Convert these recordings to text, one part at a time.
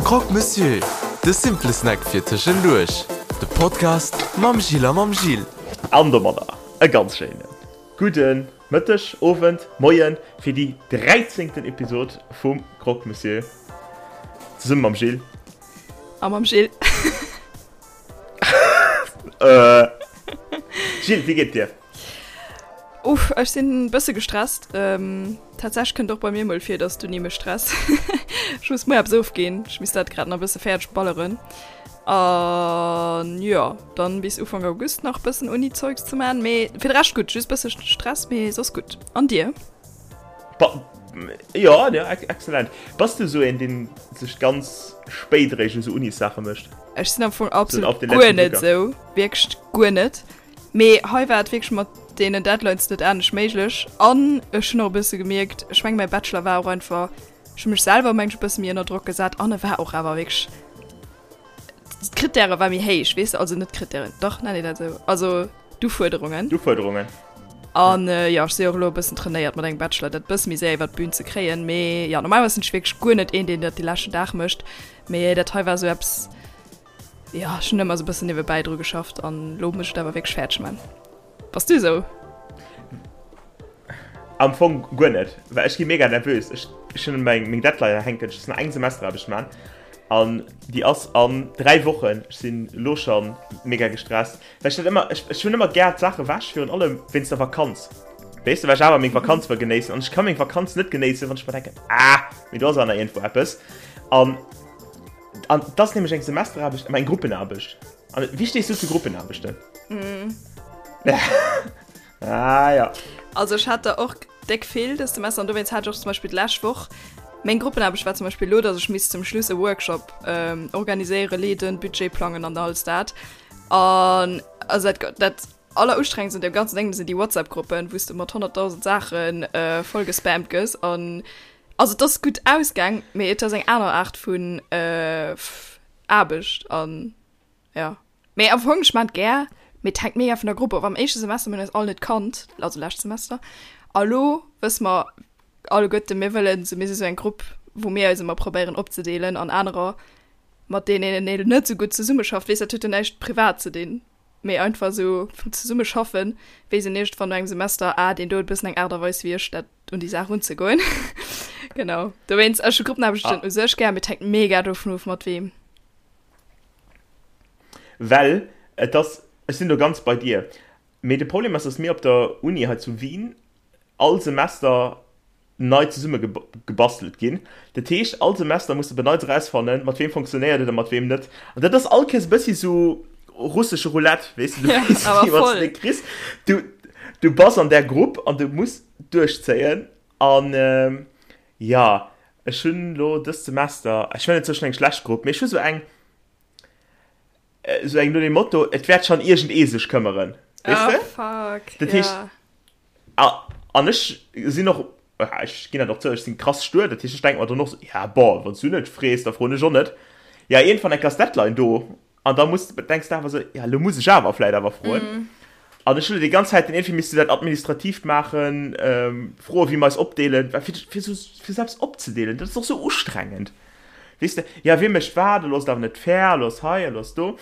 Croque Monsieur, de simple Snack fir tëschenduerch. De Podcast mam Gilles a mam Gil. An domadder e ganz schéine gudde Mëtteg, Owend, Moien fir déi dräizéngten Episod vum Croque Monsieur zesumme mam Gilles. A mam Gilles. Gilles, wéi geet et dir? Uff, ech sinn bësse gestresst. Ähm, tatsächlech kënnt och bei mir mol vir, dass d'Uni mech stresst. Ech muss muer eppes ofginn. Ech misst dat grad nach e bësse fäerdeg balleren. An jo, dann bis Ufank August nach bëssen Uni-Zeugs ze man. Mee fir de Rescht gutt, just bësse Stress, mee soss gutt. An dir? Ba jo, jo, excellent. Bass du esou een, deen sech ganz spéit eréischt u sou Unis-Saache mécht? Ech sinn am Fong absolut guer net esou, wierklech guer net. Mee hei war et wierklech mat deenen Deadlines net anescht méiglech. An ech hunn och e bësse gemierkt, ech meng mäi Bachelor war och einfach, ech hu mech selwer meng ech e bësse méi ënner Drock gesat an e war och awer wierklech, d'Krittäre war méi héich, weess de, also net d'Krittären, dach nennt een dat esou, also d'Ufuerderungen. D'Ufuerderungen. An jo, ech si och elo e bëssen trainéiert mat engem Bachelor dat bësse méi séier iwwer d'Bün ze kréien. Mee jo, normalerweis sinn ech wierklech guer net een, deen dat de leschten Dag mécht. Mee dat hei war esou eppes, Jo, ech hunn ëmmer sou bëssen niewebäi dru geschafft an lo muss ech et awer wierklech fäerdeg man. Bass du sou? Am Fong guer net, well ech gi mega nervös. Ech ech hunn meng meng Deadline hänken, ech muss nach eng Semesteraarbecht man an déi ass an 3 Wochen. Ech sinn elo scho mega gestresst, well ech dat ëmmer ech ech hunn ëmmer gär d'Saach ewech, virun allem wéinst der Vakanz, weess de, well ech awer meng Vakanz wëll genéissen an ech ka meng Vakanz net genéissen, wann ech mer denken, ah, mee do ass awer nach iergendwou eppes an An et ass nämlech eng Semesteraarbecht, mä eng Gruppenaarbecht. An wéi stees du zu Gruppenaarbechten? Mm. ah, ja. Also ech hat der och déck vill dëst Semester an dowéinst hat ech och zum Beispill d'lescht Woch meng Gruppenaarbecht war zum Beispill lo, datt ech misst zum Schluss e Workshop ähm, organiséieren, leeden, Budget plangen an alles dat. An also dat, dat allerustrengendst un deem ganzen Ding sinn déi WhatsApp-Gruppen, wou s de mat 100.000 Saachen äh, voll gespammt gëss an Also et ass gutt ausgaang, mee et ass eng aner Aart vun Aarbecht an jo. Mee am Fong, ech maan et gär, mee et hänkt mega vun der Grupp of. Am éischte Semester mir hunn eis all net kannt, also lescht Semester, a lo wësse mer alleguerten, mir wëllen esou, mir si sou eng Grupp, wou mir eis ëmmer probéieren opzedeelen an anerer, mat deenen een net esou gutt zesummeschafft, weess, dat huet jo näischt privat ze dinn. Mee einfach esou vum Zesummeschaffen weess een iergendwann no engem Semester, ah, deen do huet e bëssen eng Aart a Weis wéi ech, dat un déi Saach unzegoen. Genau. Dowéinst, ech hu Gruppenaarbechten ah. u sech gär, mee et hänkt mega dovun of, mat weem. Well et ass, ech sinn do ganz bei dir, mee de Problem ass, dass mir op der Uni hei zu Wien all Semester nei zesumme gebastelt ginn. Dat heescht, all Semester muss de op e Neits erausfannen, mat weem fonctionnéiert et a mat weem net. An dat ass all Kéiers e bëssi sou russesche Roulette, weess de, du weess ni, wat s de kriss. Du, du bass an där Grupp an du muss duerchzéien. An jo, ech hunn elo dëst Semester, ech hunn net sou eng schlecht Grupp, mee ech hu sou eng, sou eng no dem Motto, et wäert schonn iergendee sech këmmeren, weess de? Oh fuck, Dat heescht, ja. An ech sinn och, ech ginn dat och zou, ech sinn krass stuer. Dat heescht, ech denke mer dann och sou, ja bon, wann s du net frees, da froen ech och net. Ja, iergendwann enk ass d'Deadline do an da muss, denks de awer sou, ja elo muss ech awer vläit awer froen. An ech hunn elo déi ganz Zäit dann iergendwéi misste dat Administratiivt maachen, froen, wéi mer eis opdeelen, well fir, fir sou, fir sou eppes opzedeelen, dat ass och sou ustrengend, weess de, ja wie mécht wat, elo ass et awer net fair, elo ass hei, elo ass do.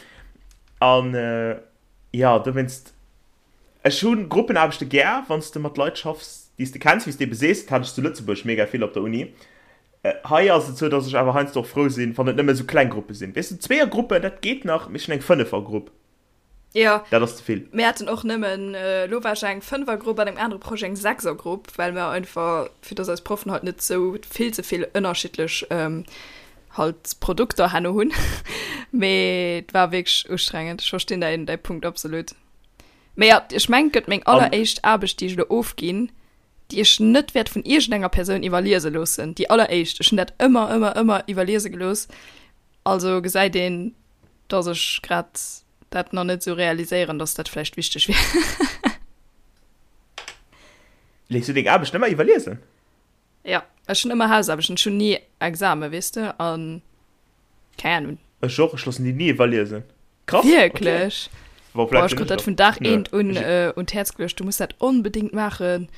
An jo, dowéinst. Ech hu Gruppenaarbechte gär, wann s de mat Leit schaffs, déi s de kenns, wéi s de ebe sees. Dat hat ech zu Lëtzebuerg mega vill op der Uni. Hei ass et sou, datt ech awer heiansdo och frou sinn, wann et nëmme sou kleng Gruppe sinn. Weess de, Zweeërgruppen, dat geet nach, mee ech hunn eng Fënnefergrupp. Jo. Dat ass ze vill. Mir haten och nëmmen, elo war ech eng Fënnefergrupp, an engem anere Projet eng Sechsergrupp, well mer einfach, fir datt eis Proffen halt net sou vill ze vill ënnerschiddlech halt Produkter herno hunn. Mee et war wierklech ustrengend. Ech verstinn däin, däi Punkt absolut. Mee ja, ech mengen, et gëtt meng alleréischt Aarbecht, déi ech elo ofginn, déi ech net wäert vun iergendenger Persoun iwwerliese loossen. Déi alleréischt. Ech hunn dat ëmmer, ëmmer, ëmmer iwwerliese gelooss. Also gesäit een, dass ech grad dat nach net esou realiséieren, dass dat vläicht wichteg wier. Léiss du deng Aarbecht ëmmer iwwerliesen? Ja, ech hunn ëmmer Hausaarbechten, ech hunn ni Examen, weess de, an keng Ahnung. Ech och, ech loossen déi ni iwwerliesen. Krass, okay. Wierklech? Bon, Boah, ech krut dat vun Dag eent un un d'Häerz geluecht, du muss dat onbedéngt maachen.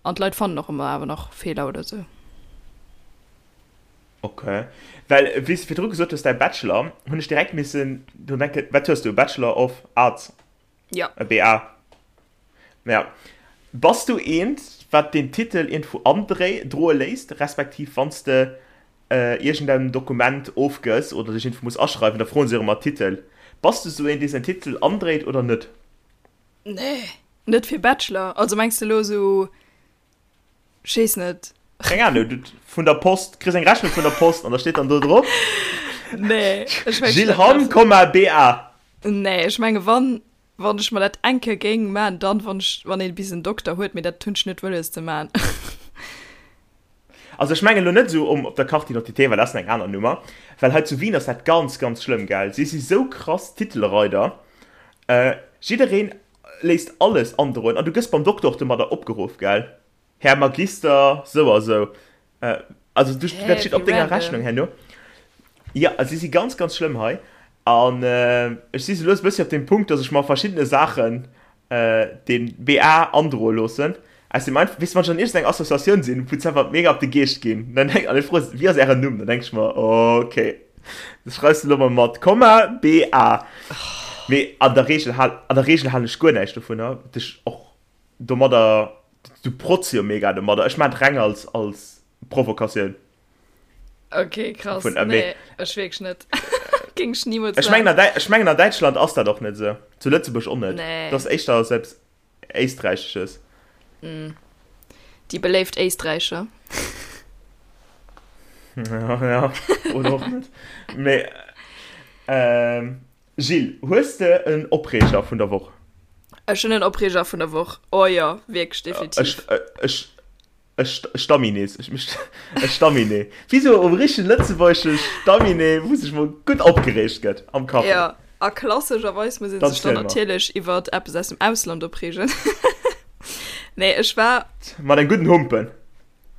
An d'Leit fannen och ëmmer awer nach Feeler oder sou. Ok. Well wéi s de virdru gesot hues, däi Bachelor, hunn ech direkt missen drun denken, wat hues du, Bachelor of Arts? Ja. E BA. Ja. Bass du eent, wat deen Titel iergendwou androe léisst, respektiv wann s de iergendeng Dokument ofgëss oder dech iergendwou muss aschreiwen, da froen se jo ëmmer Titel. Bass du sou een, dee säin Titel andréit oder net? Nee, net fir Bachelor. Also mengs de elo sou, ech weess net. Keng Ahnung, du vun der Post, kriss eng Rechnung vun der Post an da steet dann do drop. Nee, ech mengen. Gilles Hamm, Komma, BA. Nee, ech menge wann, wann ech mer dat eng Kéier géing man, dann wann ech, wann ee bis en Dokter huet, mee dat hunn ech net wëlles ze man. Also ech mengen elo net esou um op der Carte d'identité, well dat ass eng aner Nummer, well hei zu Wien ass dat ganz ganz schlëmm, gell, si si sou krass Titelreider, jiddereen léisst alles androen an du gëss beim Dokter och domadder opgeruff, gell, Här Magister sou a sou. Also du, dat steet op denger Rechnung herno. Jo, si si ganz ganz schlëmm hei an ech si sou lues e bëssi op deem Punkt, dass ech mer verschiddene Saachen den BA androe loossen, aus dem einfach, weess de, wann ech an iergendeng Associatioun sinn, wou se einfach mega op de Geescht ginn, dann denk, an ech froe se, wéi ass ären Numm, dann denk ech mer, okay, das schreifs de elo mol mat Komma BA. Mee an der Reegel hal, an der Reegel halen ech guer näischt dovunner, dech och domadder, du protz jo mega domadder, ech maan et reng als, als Provokatioun. Okay, krass. Vun, äh, nee, ech wierklech net. Géing ech nimools Ech mengen, an Däi ech mengen an Däitschland ass dat och net esou. Zu Lëtzebuerg och net. Nee. Dat ass éischter selbst Éisträichesches. Mm. Déi beléift Éisträicher. Ja, ja. Oder och net. Mee, ähm, Gilles, hues de en Opreeger vun der Woch? Ech hunn en Opreeger vun der Woch. Oh jo, wierklech, definitiv. Ech, ech, E Stamminee, e Stamminee. Wéi sou e richtegen lëtzebuergesche Stamminee, wou sech mol gutt opgereegt gëtt am Café. Jo, a klassescherweis muss ee sech dann natierlech iwwert eppes aus dem Ausland opreegen. Nee, ech war. Mat engem gudden Humpen.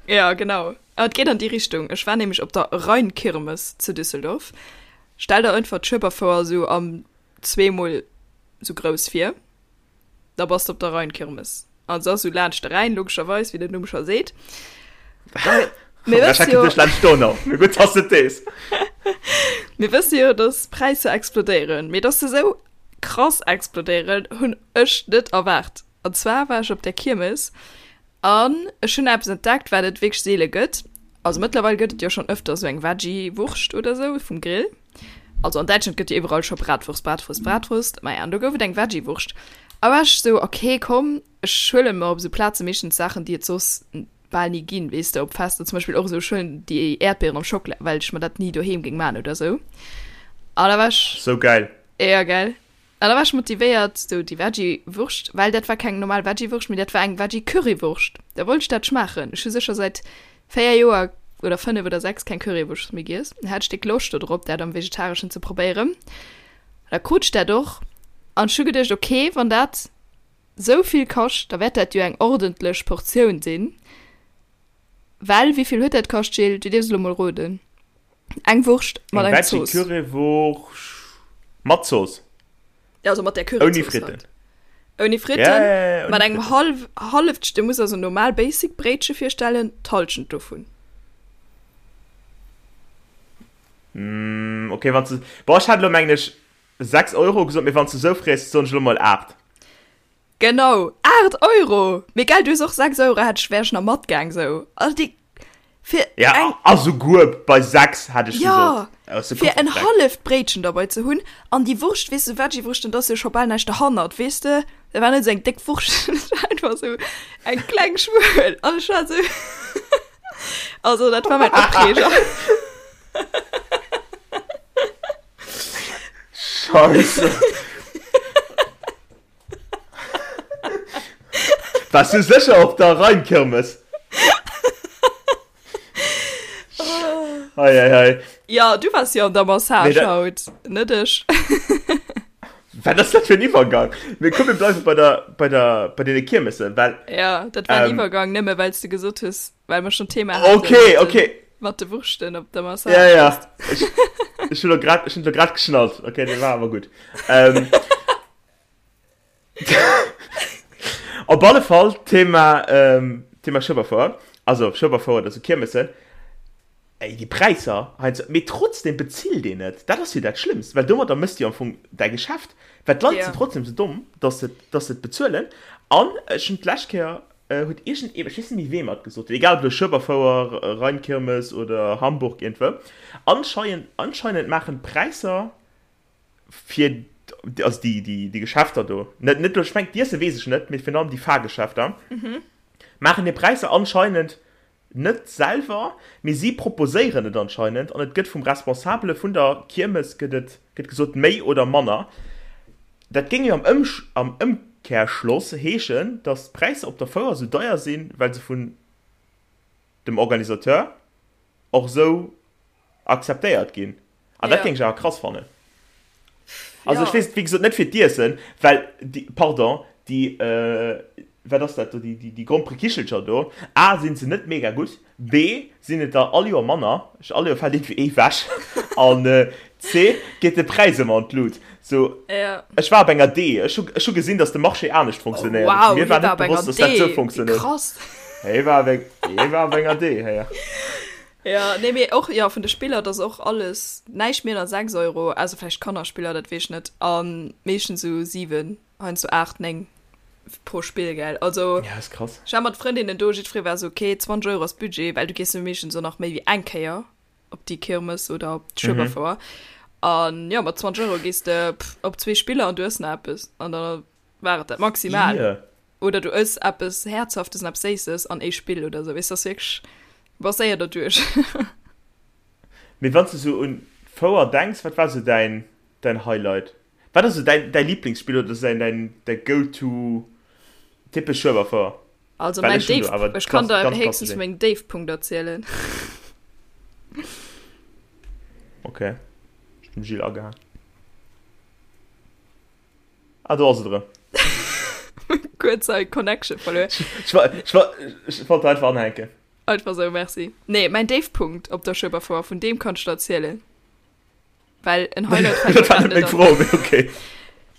Jo, genau. Et geet an déi Richtung. Ech war nämlech op der Rheinkirmes zu Düsseldorf. Stell der einfach d'Schueberfouer sou am zweemol sou grouss vir. Da bass de op der Rheinkirmes. An se ass sou laanscht de Rhäin, logescherweis, wéi den Numm scho seet. Mir wësse jo, laanscht d'Donau. Mee gutt, dass de et weess. Mir wësse jo, dass d'Präisser explodéieren. Mee dass se sou krass explodéieren, hunn ech net erwaart. An zwar war ech op där Kiermes an ech hunn eppes entdeckt, wat et wierklech seele gëtt. Also mëttlerweil gëtt et jo schonn ëfter sou eng Veggie-Wurscht oder sou vum Grill. Also an Däitschland gëtt jo iwwerall scho Bratwurst, Bratwurst, Bratwurst. Maja, an do gouf et eng Veggie-Wurscht. A war ech sou, okay, komm, ech huelen mer op sou Plaze meeschtens Saachen, déi et soss bal ni ginn, weess de, op Fester zum Beispill och esou, ech huelen déi Äerdbieren am Schockela, well ech mer dat ni doheem géing man oder sou. A da war ech. Sou gäil. Ja, gell. An da war ech motivéiert, sou déi Veggie-Wurscht, well dat war keng normal Veggie-Wurscht, mee dat war eng Veggie-Currywurscht. Da wollt ech dat schmaachen. Ech hu sécher säit 4 Joer oder 5 oder 6 keng Currywurscht méi giess. Da hat ech déck Loscht do drop, dat am Vegetareschen ze probéieren. Da krut ech dat och an ech hu geduecht, okay, wann dat sou vill kascht, da wäert dat jo eng ordentlech Portioun sinn. Well, wéi vill huet dat kascht, Gilles? Du dierfs elo mol roden. Eng Wurscht mat Eng engem Zooss. Veggie-Currywurscht mat Zooss. Ja, also mat der Ouni Curryzooss Fritten. halt. Ouni Fritten, Ja, ja, ja, mat ouni engem Fritten. half, halleft, du muss also normal Basic Bréitche virstellen, d'Halschent dovun. Mm, okay, wann du, boah, ech hat elo mengen ech 6 Euro gesot, mee wann du sou frees, soen ech elo mol 8. Genau, 8 Euro! Mee gell, du hues och 6 Euro, hätt ech, wär ech nach matgaang sou. Also déi, fir Ja, eng. a souguer bei 6 hätt ech Ja, gesot. Aus de fir en Koffer halleft Bréitchen derbei ze hunn an déi Wurscht, weess de, Veggie-Wurschten, da ass jo scho bal näischt derhannert, weess de, dat war net esou eng déck Wurscht, dat war einfach esou eng kleng Schmuel an ech war esou, also dat war mäin Opreeger. Scheisse. Wars du sécher op der Rheinkirmes? Hei, hei, hei. Ja, du wars jo an der Massage Nee, dat- haut, net ech. Wat ass dat fir en Iwwergang? Mee komm, mir bleiwe bei der, bei der, bei deene Kiermessen, well. Ja, dat war en Ähm. Iwwergang, nëmme well s du gesot hues, well mer schon Thema haten. Okay, mat den- okay. Mat de Wurschten op der Massage. Ja, ja. Ech, ech hunn lo grad, ech hunn lo grad geschnallt. Okay, dee war awer gutt. Ähm. Op alle Fall, Thema, ähm, Thema Schueberfouer. Also, Schueberfouer, dat si Kiermessen. Ey, déi Präisser heiansdo, mee trotzdem bezilt een et. Dat ass jo dat Schlëmmst, well domadder méchs de jo am Fong däi Geschäft, well d'Leit sinn trotzdem sou domm, dass se, dass se et bezuelen. An ech hunn d'lescht Kéier, huet iergend ee, ech weess net méi wee mer et gesot huet, egal ob elo Schueberfouer, Rheinkirmes oder Hamburg iergendwou, anscheinend, anscheinend maachen d'Präisser fir, also déi, déi, déi Geschäfter do, net, net elo, ech mengen d'Iesse weess ech net, mee virun allem déi Fahrgeschäfter, maachen hir Präisser anscheinend Net selwer, mee si proposéieren et anscheinend an et gëtt vum Responsabele vun der Kiermes gëtt et gëtt gesot, méi oder manner. Dat géing jo am am Ëmkehrschloss heeschen, datt d'Präisser op der Fouer sou deier sinn, well se vun dem Organisateur och esou akzeptéiert ginn. An dat géing ech awer krass fannen. Also ech weess et wéi gesot net fir d'Iessen, well déi, pardon, déi, wat ass dat do, déi, déi, déi Gromperekichelcher do, A sinn se net mega gutt, B sinn et der all Joer manner, all Joer fält iergendwéi ee wech, an C geet de Präis ëmmer an d'Lut. Sou, ech war op enger D, ech hu, ech hu gesinn, datt de Marché anescht funktionéiert. Wow, Mir hie war war net op enger bewosst, datt dat D, sou wéi funktionéiert. krass. Hie war op eng, hie war op enger D, héier. Ja, nee, mee och, ja, vun de Spiller, dat ass och alles näischt méi ënner 6 Euro, ausser vläicht Kannerspiller, dat weess ech net, a meeschtens esou 7, heiansdo 8, 9 pro Spill, gell. Also, Ja, ass krass. ech war mat Frëndinnen do, jiddweree war esou, okay, 20 Euro ass Budget, well du gees jo meeschtens och nach méi wéi eng Kéier op déi Kirmes oder op d'Schueberfouer. An jo, mat 20 Euro gees de op zwee Spiller an du ëss nach eppes an da war et dat maximal. Ie. Oder du ëss eppes Häerzhaftes an eppes Séisses an ee Spill oder sou, weess, ass wierklech, du bass séier derduerch. Mee wann s de sou un d'Fouer denks, wat war sou däin, däin Highlight? Wat ass sou däin, däi Liblingsspill oder sou däin, däi Go-to typesch Schueberfouer? Also Well mäin ech hunn do Déif, awer ech kann klass, der ganz héchstens klassesch vu een. mengem Déifpunkt erzielen. Okay, ech hunn dem Gilles agehaang. Ah, do ass et erëm. Kuerz hei Connection verluer. Ech wa, ech wa, ech wollt einfach anhänken. Einfach sou, merci. Nee, mäin Déifpunkt op der Schueberfouer, vun deem kann ech der erzielen. Well en Highlight fällt mir Dat war grad net net meng an. Fro, mee okay.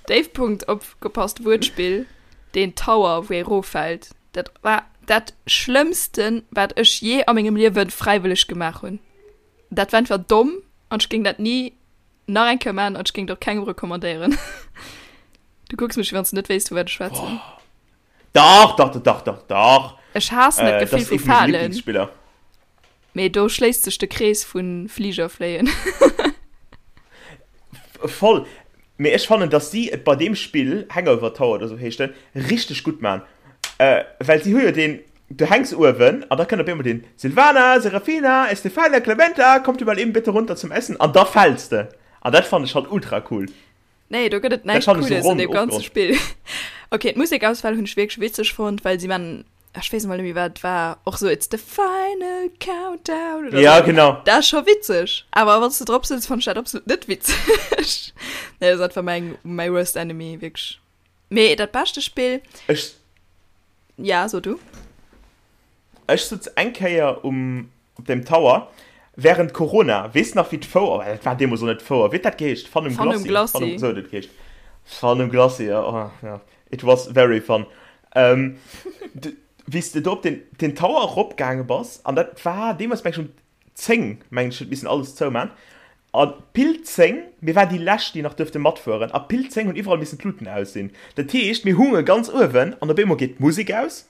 Déifpunkt, opgepasst, Wuertspill, deen Tower, wou ee roffält. Dat war dat Schlëmmsten, wat ech jee a mengem Liewen fräiwëlleg gemaach hunn. Dat war einfach domm an ech géing dat ni Nach eng Kéier man an ech géing et och kengem recommandéieren. Du kucks mech wéi wann s de net wéisst vu wat ech schwätzen. Dach, dach, dach, dach, dach. Ech haassen dat Äh, dat Gefill ass vu ee vu menge Falen. Lieblingsspiller. Mee do schléisst sech de Krees vu Fliger fléien. Voll. Mee ech fannen, dass si et bei deem Spill, Hangover Tower oder sou heescht en, richteg gutt man. Äh, well si hu jo deen, du hänks uewen an da kënnt op eemol deen, Silvana, Serafina, Estefania, Clementa, kommt ihr mal eben bitte runter zum Essen an da fäls de. An dat fannen ech halt ultra cool. Nee, do gëtt et Dat näischt fannen ech sou Cooles an ronn deem ganze ofgeronnt. Spill. Okay, d'Musekauswahl hunn ech wierklech witzeg fonnt, well si man, ech weess emol net méi wat et war, och sou It's the final countdown oder Ja, sou. genau. Dat ass scho witzeg, awer wann s de drop sëtz, fannt ech dat absolut net witzeg. Nee, dat ass einfach mäin, mäi worst enemy, wierklech. Mee dat beschte Spill, Ech, ja, so du. ech sutz eng Kéier um, op dem Tower während Corona, weess nach wéi d'Fouer, oh, dat war deemools och net d'Fouer, wéi huet dat geheescht? Fun um Fun um Glacis, Glacis. Fun um, sou huet et geheescht. Fun um Glacis, ja, oh, ja. It was very fun. Ähm, wéi s de do op den, den Tower eropgaange bass, an dat war deemools, meng ech, um 10, meng ech, huet missen alles zouman. A pile 10, mir waren déi lescht, déi nach duerfte matfueren, a pile 10 hunn iwwerall missen d'Luten aus sinn. Dat heescht, mir hunge ganz uewen an op eemol geet d'Musek aus,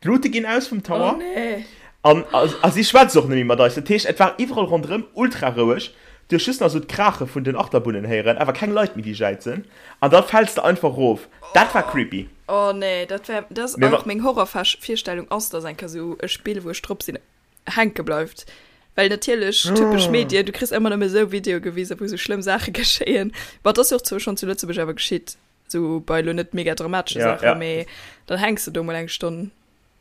D'Lute ginn aus vum Tower. Oh nee. An, a si schwätzt och net méi mat eis. Dat heescht, et war iwwerall ronderëm ultra roueg. Du hues just nach esou d'Kraache vun den Achterbunnen héieren, awer keng Leit méi, déi jäizen. An da fäls de einfach erof. Dat war creepy. Oh nee, dat wär, dat ass Mee wa. och meng Horrorvirstellung ass, dass eng Kéier esou e Spill, wou ech drop sinn, hänke bleift. Well natierlech, typesch Medien, du kriss ëmmer nëmme esou Videoe gewisen, wou esou schlëmm Saache geschéien. Ma et ass jo och zwou schonn zu Lëtzebuerg awer geschitt. So bei lo net mega dramatesche Ja, Saachen, ja. mee dann hänks de do mol eng Stonn.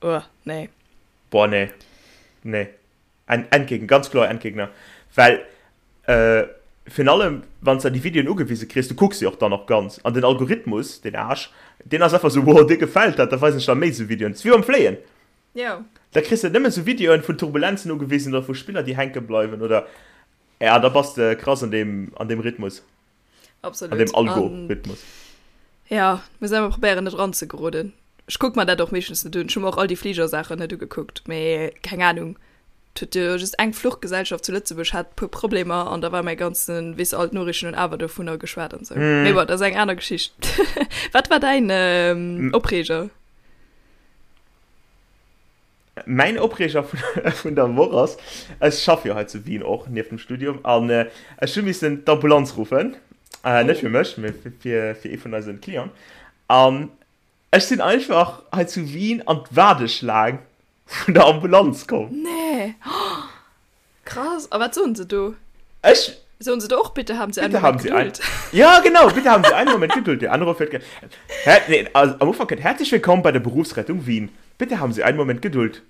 Uah, nee. Boah, nee. Nee. En Endgegner, ganz kloer Endgegner. Well, äh, virun allem, wann s de déi Videoen ugewise kriss, du kucks se och dann och ganz. An den Algorithmus, den Aarsch, deen ass einfach sou, wow, dir gefält dat, da weisen ech der méi sou Videoen. Dat ass wéi beim Fléien. Jo. Da kriss de nëmmen sou Videoen vun Turbulenzen ugewisen oder vu Spiller, déi hänke bleiwen oder, ja, da bass de krass an deem, an deem Rhythmus. Absolut. An dem Algorithmus. Ja, muss emmer probéieren net ranzegeroden. Ech kuck mer dat och meeschtens net un. Ech hu mer och all déi Fligersaachen net ugekuckt, mee keng Ahnung. Et huet jo just eng Fluchgesellschaft zu Lëtzebuerg hat puer Problemer an da war mäi ganzen, weess all d'Noriichten hunn awer dovunner geschwat an sou. Mm. Mee bon, dat ass eng aner Geschicht. Wat war däin ähm, Opreeger? Mäin Opreeger vun, vun der Woch ass, ech schaffe jo hei zu Wien och nieft dem Studium an äh, ech hu missen d'Ambulanz ruffen. Äh, net fir mech, mee fir, fir, fir ee vun eisen Clienten. An Ech sinn einfach hei zu Wien an d'Waardeschlaang vun der Ambulanz komm. Nee! Oh, krass! A wat soen se do? Ech. Soen se do och, Bitte haben Sie einen Bitte Moment haben Sie ein Geduld? Ja, genau, bitte haben Sie einen Moment Geduld. Der Anruf wird ge Her nee, also am Ufank kënnt, Herzlich willkommen bei der Berufsrettung Wien. Bitte haben Sie einen Moment Geduld.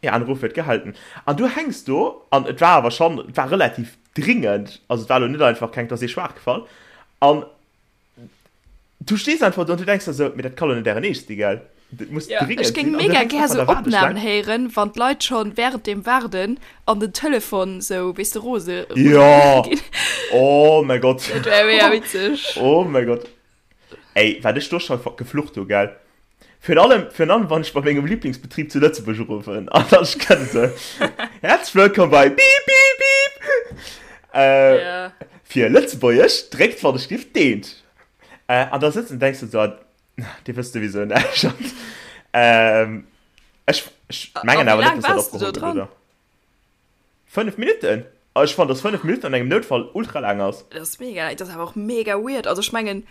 Ihr Anruf wird gehalten. An du hängs do, an et war awer schonn, et war relativ dringend, also et war elo net einfach keng, et ass ee schwaach gefall. An Du stees einfach do an du denks der sou, mee dat ka lo net ären Eescht si, gell? Dat muss Ja, dringend ech géing sinn. An du mega hänks gär einfach an sou der Waardeschlaang. Opnamen héieren, wann d'Leit schonn während dem Waarden an den Telefon sou, weess de, rose rose Ja! ginn. Oh mäi Gott. Dat wär mega witzeg. Oh mäi Gott. Ey, wat ech do scho geflucht hu, gell? Virun allem, virun allem wann ech bei mengem Lieblingsbetrib zu Lëtzebuerg uruffen an dann ech kenne se. Herzlich willkommen bei Bip Bip Bip. Äh, Ja. Fir Lëtzebuergesch dréckt wann ech giff deent. Äh, an da sëtzt an denkst du so, Dir wësst souwisou näischt. Ähm, ech, ech mengen A wéi awer net, laang dass dat waars du do opgeholl gëtt, dran? oder? 5 Minutten? Ah, ech fannen, dass 5 Minutten an engem Noutfall ultra laang ass. Dat ass mega laang. Dat ass awer och mega weird. Also ech mengen,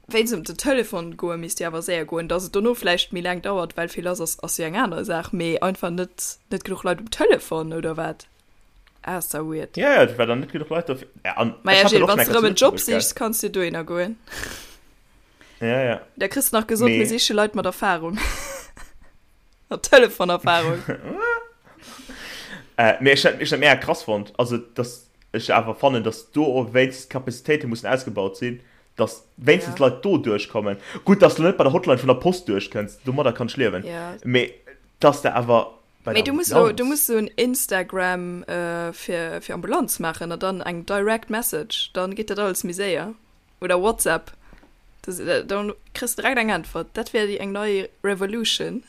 wéinst ëm den Telefon goe misst jo awer séier goen. Dass et dono vläicht méi laang dauert, well vill lass ass, ass jo eng aner Saach. Mee einfach net, net genuch Leit um Telefon, oder wat? Ah, ass da weird. Ja, ja, et war dann net genuch Leit dofir. Ja, an ech Maja, hat Gilles, dann och wann schon s de eng rëm en Kéier zu Job Lëtzebuerg, gell? sichs, kanns du dohinner goen. Ja, ja. Da kriss de nach gesot, mir Mee. siche Leit mat Erfahrung. Mat Telefonerfahrung. Äh, mee ech hat, ech hat mega krass fonnt, also dass ech awer fannen, dass do och wéinstens d'Kapazitéite mussen ausgebaut sinn, dass wéinstens Ja. Leit do duerchkommen. Gutt, dass du net bei der Hotline vun der Post duerchkënns, domadder kann ech liewen. Ja. Mee dass de awer bei Mee der du muss lo, du Ambulanz. muss sou en Instagram äh, fir, fir Ambulanz maachen an dann eng Direct Message, dann geet dat alles méi séier. Oder WhatsApp. Das, äh, dann kriss du direkt eng Äntwert. Dat wär déi eng nei Revolution.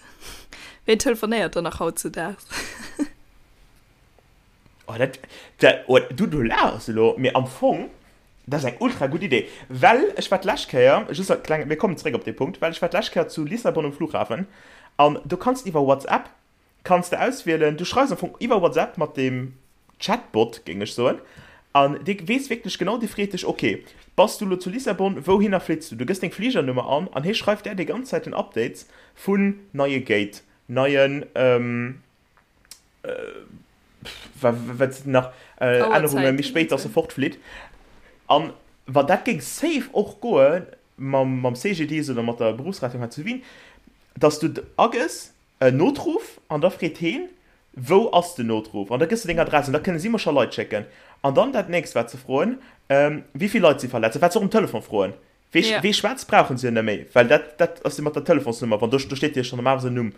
Ween telefonéiert dann nach hautzudaags? Oh, dat, dat, oh, du, du laachs elo, mee am Fong, dat ass eng ultra gutt Idee. Well ech war d'lescht Kéier, just als kleng, mir kommen zeréck op dee Punkt, well ech war d'lescht Kéier zu Lissabon um Flughafen an do kanns de iwwer WhatsApp kanns de auswielen, du schreifs am Fong iwwer WhatsApp mat deem Chatbot, géing ech soen, an dee weess wierklech genau, dee freet dech, ok, bass du elo zu Lissabon, wouhinner flitt s du? Du gëss deng Fligernummer an an hie schreift där déi ganz Zäit den Updates vun neie Gate, neien, wat sinn nach, Ännerunge méi spéit, dass e fortflitt. An wa dat géing safe och goe mam CGDIS oder mat der Berufsrettung hei zu Wien, dass du agëss, En Notruff, an da freet heen, Wou ass den Notruff? An da gëss de deng Adress an da kënne si mer scho Leit schécken. An dann dat nächst, wat se froen, Wéi vill Leit si verletzt? Wat se och um Telefon froen. Wee, Ja. wee schwätzt, brauchen se jo net méi, well dat, dat ass jo mat der Telefonsnummer, wann do, do steet jo schonn normalerweis en Numm.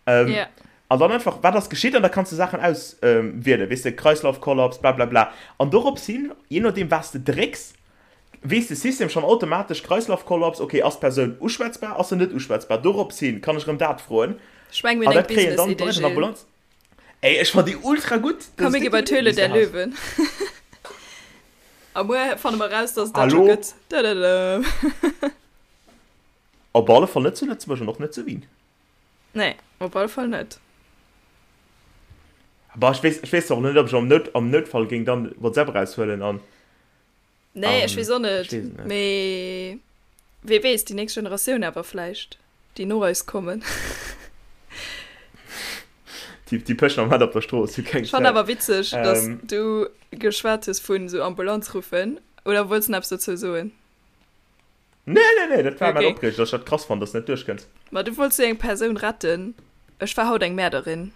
Ja. An dann einfach, Wat ass geschitt? An da kanns de Saachen auswielen, weess de, Kreislaufkollaps, blablabla. An dorops hin, jee nodeem, wat s de drécks, Weess de System schonn automatesch, Kreislaufkollaps, ok, ass d'Persoun uschwätzbar, ass se net uschwätzbar? Dorops hin kann ech erëm dat froen. Ech meng, mir An hunn eng dat kréien dann Business-Idee, d'Leit an der Gilles. Ambulanz. Ey, ech fann déi ultra gutt! Dat Komm, ass mir gi déi bei gutt d'Höhle Idee, der déi s de has. Löwen. A muer fanne mer raus, dass et dat scho Hallo? gëtt. Dadadam. Op alle Fall net zu Lëtzebuerg an och net zu Wien. Nee, op alle Fall net. Bah, ech weess, ech weess och net, ob ech am Nout, am Noutfall géing dann WhatsApp eraushuelen an. Nee, ech weess och net. Mee Mee wee weess, déi nächst Generatioun awer vläicht, déi no eis kommen. Déi, déi pëschen am Moment op der Strooss, hu keng Ech fannen Zäit. awer witzeg, dass Ähm. du geschwat hues vun esou Ambulanz ruffen. Oder wollts de nach eppes dozou soen? Nee, nee, nee, dat war mäin Okay. Opreeger, dass ech dat krass fannen, dass de net duerchkënns. Ma du wollts jo eng Persoun retten. Ech war haut eng Mäerderin.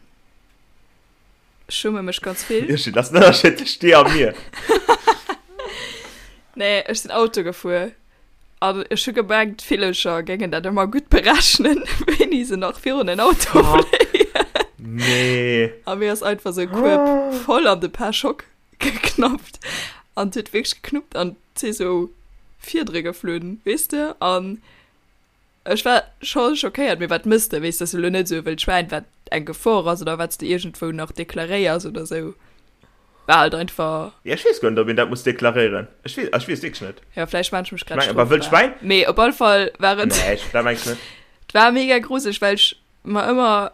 Ech schumme mech ganz vill. Irschel, dat ass den Ënnerscheed tëscht dir a mir. Nee, ech sinn Auto gefuer an ech hu gemengt, d'Villercher géingen dat ëmmer gutt berechnen, wéini se nach virun en Auto fléien. Nee. A mir ass einfach sou e Kueb voll an de Pare-choc geknappt an et huet wierklech geknuppt an et si sou Fiedere geflunn, weess de. An ech war scho schockéiert, mee wat mëss de, weess de, ass elo net esou e wëllt Schwäin, wat. eng Gefor ass oder wat s de iergendwou nach deklaréiers oder sou. War halt einfach. Ja, ech weess guer net, ob een dat muss deklaréieren. Ech weess, ech weess wierklech net. Ja, vläicht maan ech mech grad Meng, awer wëllt strofbar. Schwäin? Mee op alle Fall war et. Nee, ech, dat meng ech net. Et war mega gruseleg, well ech mer ëmmer,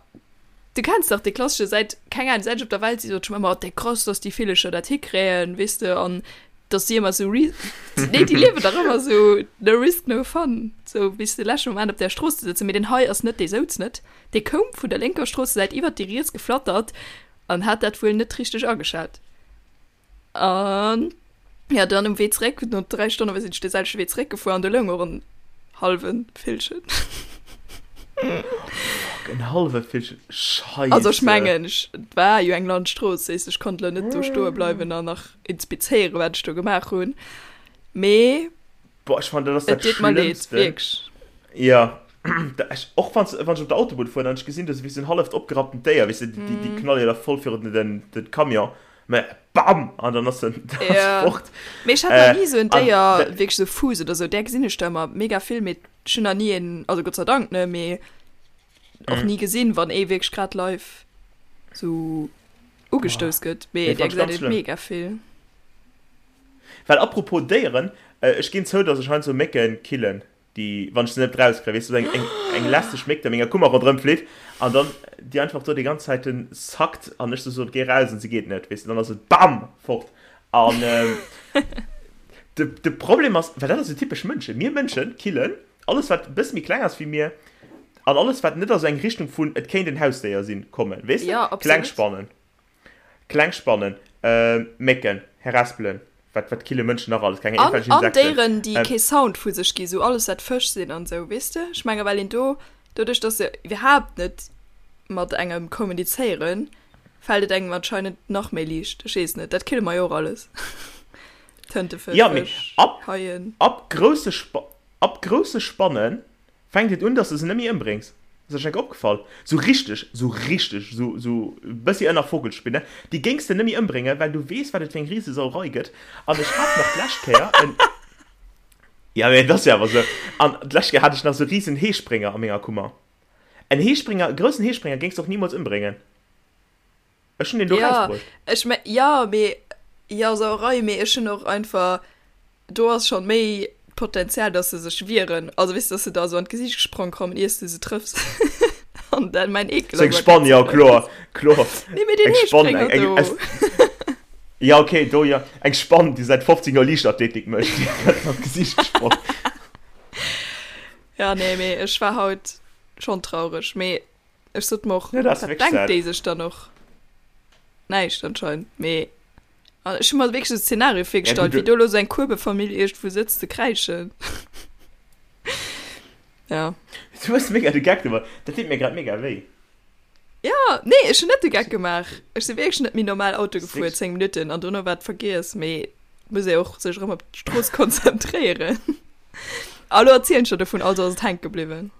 du kenns dach dee klassesche, säit, keng Ahnung, säit ech op der Welt si sot ech mer ëmmer, oh, dee krass, dass déi Villecher dat hikréien, weess de, an dass déi ëmmer sou ri-, nee, déi liewen dach ëmmer sou no risk, no fun, sou bis de leschte Moment op där Strooss ze sëtzen. Mee deen hei ass net, dee souz net, dee koum vun der lénker Stroossesäit iwwert déi riets geflattert An hat dat wuel net richteg ageschat. An ja, dann um Wee zréck, no 3 Stonne sinn ech de selwechte Wee zréck gefuer an do loung och en hallwe Villchen. Fuck, en hallwe Villchen, Scheisse. Also ech mengen, ech, et war jo eng Landstrooss, weess ech konnt lo net do stoe bleiwen an nach inspizéieren, wat ech do gemaach hunn. Mee Boah, ech fannen, dat ass dat et deet mer leed, Schlëmmsten. wierklech. Ja, ech, och wann wann ech op der Autobunn fueren an ech gesinn do wéi sou en halleft opgerapptent Déier, weess de, déi, déi knalle jo da voll virun den, den, den Camion, mä bam! An dann ass en, dann ass Ja. fort. Mee ech hat nach Äh, ni sou en an Déier, dat, wierklech sou Fuuss oder sou, där gesinn ech der ëmmer mega vill, mee ech hunn nach ni een, also Gott sei Dank, ne, mee och ni gesinn, wann ee wierklech grad live sou ugestouss gëtt, mee nee, där fand ech ganz gesäit een schlëmm. mega vill. Well apropos Déieren, ech ginn zou, dass ech heiansdo Mécken killen, déi, wann ech se net rauskréien, weess du, eng, eng lästeg Méck, déi a menger Kummer ronderëm flitt an dann déi einfach do déi ganz Zäiten zackt an ech sou soen, géi raus an se geet net, weess du, dann ass et bam! fort. An de, de Problem ass, well dat ass esou typesch Mënschen, mir Mënschen killen alles, wat e bësse méi kleng ass wéi mir an alles, wat net a sou eng Richtung vun et kéint en Hausdéier sinn, kommen, weess du, Ja, kleng absolut. Spannen. Kleng Spannen, Mécken, Harespelen, wat wat kille Mënschen nach alles, keng An, iergendwelch an Insekten. Déieren, déi kee Sound vu sech gi, sou alles wat Fësch sinn an sou, weess de? Ech menge well een do, doduerch dass se iwwerhaapt net mat engem kommunizéieren, fält et engem anscheinend nach méi liicht. Ech weess net, dat kille mer jo och alles. Tëntefësch, Ja, mee Fësch, ab, Haien. ab grousse Spa, ab grousse Spannen Fänkt et un, dass de se net méi ëmbréngs. Ass der schon enk opgefall? Sou richteg, sou richteg, sou, sou e bëssi ënner Vogelspinne, déi géings de net méi ëmbréngen, well du weess, wat et fir eng Risesauerei gëtt. An ech hat nach d'lescht Kéier en, ja, mee et ass jo awer sou, an d'lescht Kéier hat ech nach sou risen Heesprénger a menger Kummer. En Heesprénger, e groussen Heesprénger géings de och nimools ëmbréngen. Ech hunn deen do Ja, rausbruecht. ech me, ja, mee, ja, Sauerei, mee ech hunn och einfach, do ass schon méi d'Potenzial, dass se sech wieren. Also weess, dass se der esou an d'Gesiicht gesprong kommen, iers du se trëffs. An dann mäin Eekel Sou eng ass Spann, ja, ganz kloer, grouss. kloer. Nee, mee deen Eng Spann, eng, Heesprénger eng, do. es, ja, okay, do, ja. Eng Spann, déi säit 15 Joer Liichtathletik mécht, déi gëtt an d'Gesiicht gesprong. Ja, nee, mee ech war haut schon traureg, mee Ech sot mer och, Ja, dat ass wat wierklech denkt sad. déi sech dann och? Näischt anscheinend, mee an ech hu mer wierklech de Szenario Ja, gut, virgestallt, wéi du do elo sou eng Kuebefamill iergendwou sëtzt ze kräischen. Ja. Du hues mega de Geck gemaach. Dat deet mir grad mega wéi. Ja, nee, ech hunn net de Geck gemaach. Ech si wierklech net méi normal Auto Ass gefuer, wierklech. 10 Minutten, an dono war et vergiess, mee et muss ee och sech erëm op d'Strooss konzentréieren. A lo erzielen ech der dovun, also ass et hänke bliwwen.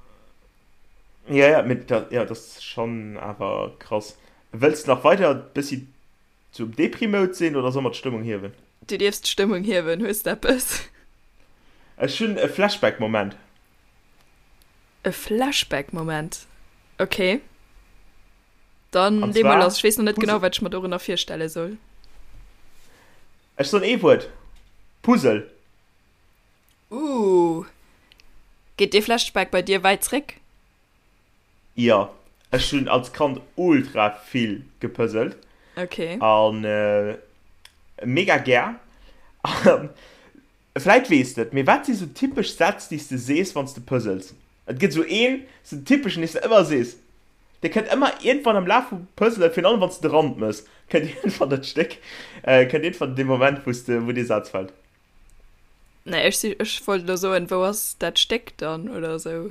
Ja, ja, mee dat, ja, dat ass schonn awer krass. Wëlls de nach weider e bëssi sou am Depri-Mode sinn oder soll mer d'Stëmmung hiewen? Du dierfs d'Stëmmung hiewen. Hues de eppes? Ech hunn e Flashback-Moment. E Flashback-Moment? Ok. Dann An lee mol zwar lass. Ech weess nach net genau, Puzzle. wat ech mer dorënner virstelle soll. Ech soen ee Wuert, Puzzle. Ooh. Geet dee Flashback bei dir wäit zréck? Jo, ech hunn als Kand ultra vill gepuzzelt. Ok. An mega gär. An vläit weess de et, mee wat si sou typesch Sätz, déi s de sees, wann s de puzzels? Et gëtt sou een, sou en typeschen, dee s de ëmmer sees. Dee kënnt ëmmer iergendwann am Laf vum Puzzelen, virun allem wann s de de Rand mëss, kënnt iergendwann dat Stéck, kënnt iergendwann dee Moment, wou s de, wou dee Saz fält. Nee, ech, si, ech wollt elo soen, wou ass dat Stéck dann oder esou.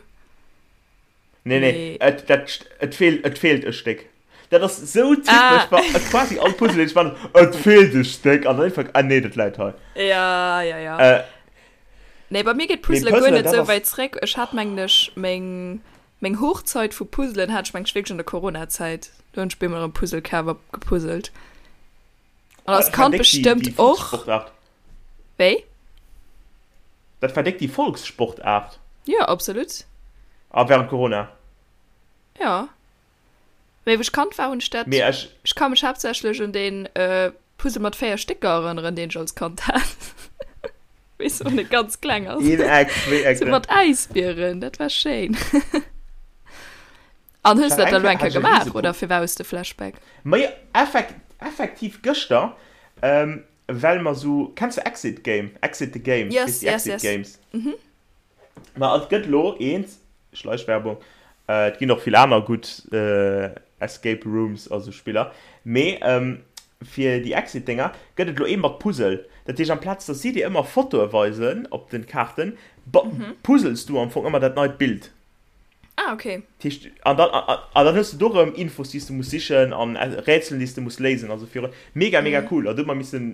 Nee, nee, Mee. et, dat, et feelt, et feelt e Stéck. Dat ass sou typesch Ah. bei quasi all Puzzle, deen ech man, et feelt e Stéck an dann einfach, ah nee, dat läit hei. Ja, ja, ja. Äh, Nee, bei mir geet mee Puzzle guer Puzzlen, net dat sou ass, wäit zréck. Ech hat mengen ech meng, meng Hochzeit vu Puzzlen hat ech mengen ech wierklech an der Corona-Zäit. Do hunn ech bemol erëm Puzzle kaf a gepuzzelt. An oh, als dat war Kand déck déi, bestëmmt déi och. Volkssportaart. Wéi? Dat war déck déi Volkssportaart. Jo, absolut. A während Corona. Ja. Mee wou ech Kand war, hunn ech dat. Mee ech. Ech ka mech haaptsächlech un deen Puzzle mat 4 Stécker erënneren, deen ech als Kand hat. Weess du, wann e ganz kleng ass. Een Eck, zwee Eck. Sou mat Äisbieren, dat war schéin. An hues du dat da lo eng Kéier gemaach, oder firwat hues de Flashback? Majo, effekt, effektiv gëschter, well mer sou, kenns de Exit Game, Exit the Game, Yes, weess déi yes, Exit yes. Games? Ma et gëtt lo eent, Schleichwerbung, et ginn och vill aner gutt Escape Rooms a sou Spiller, mee fir déi Exit-Dénger gëtt et lo ee mat Puzzle. Dat heescht, amplaz dass si dir ëmmer Fotoe weisen op den Kaarten, puzzels du am Fong ëmmer dat neit Bild. Ah, okay. Dat heescht, an dann, an dann hues du do rëm Infos, déi s du muss sichen an Rätselen, déi s du muss léisen. Also fir mega, mega cool. An du hu mer missen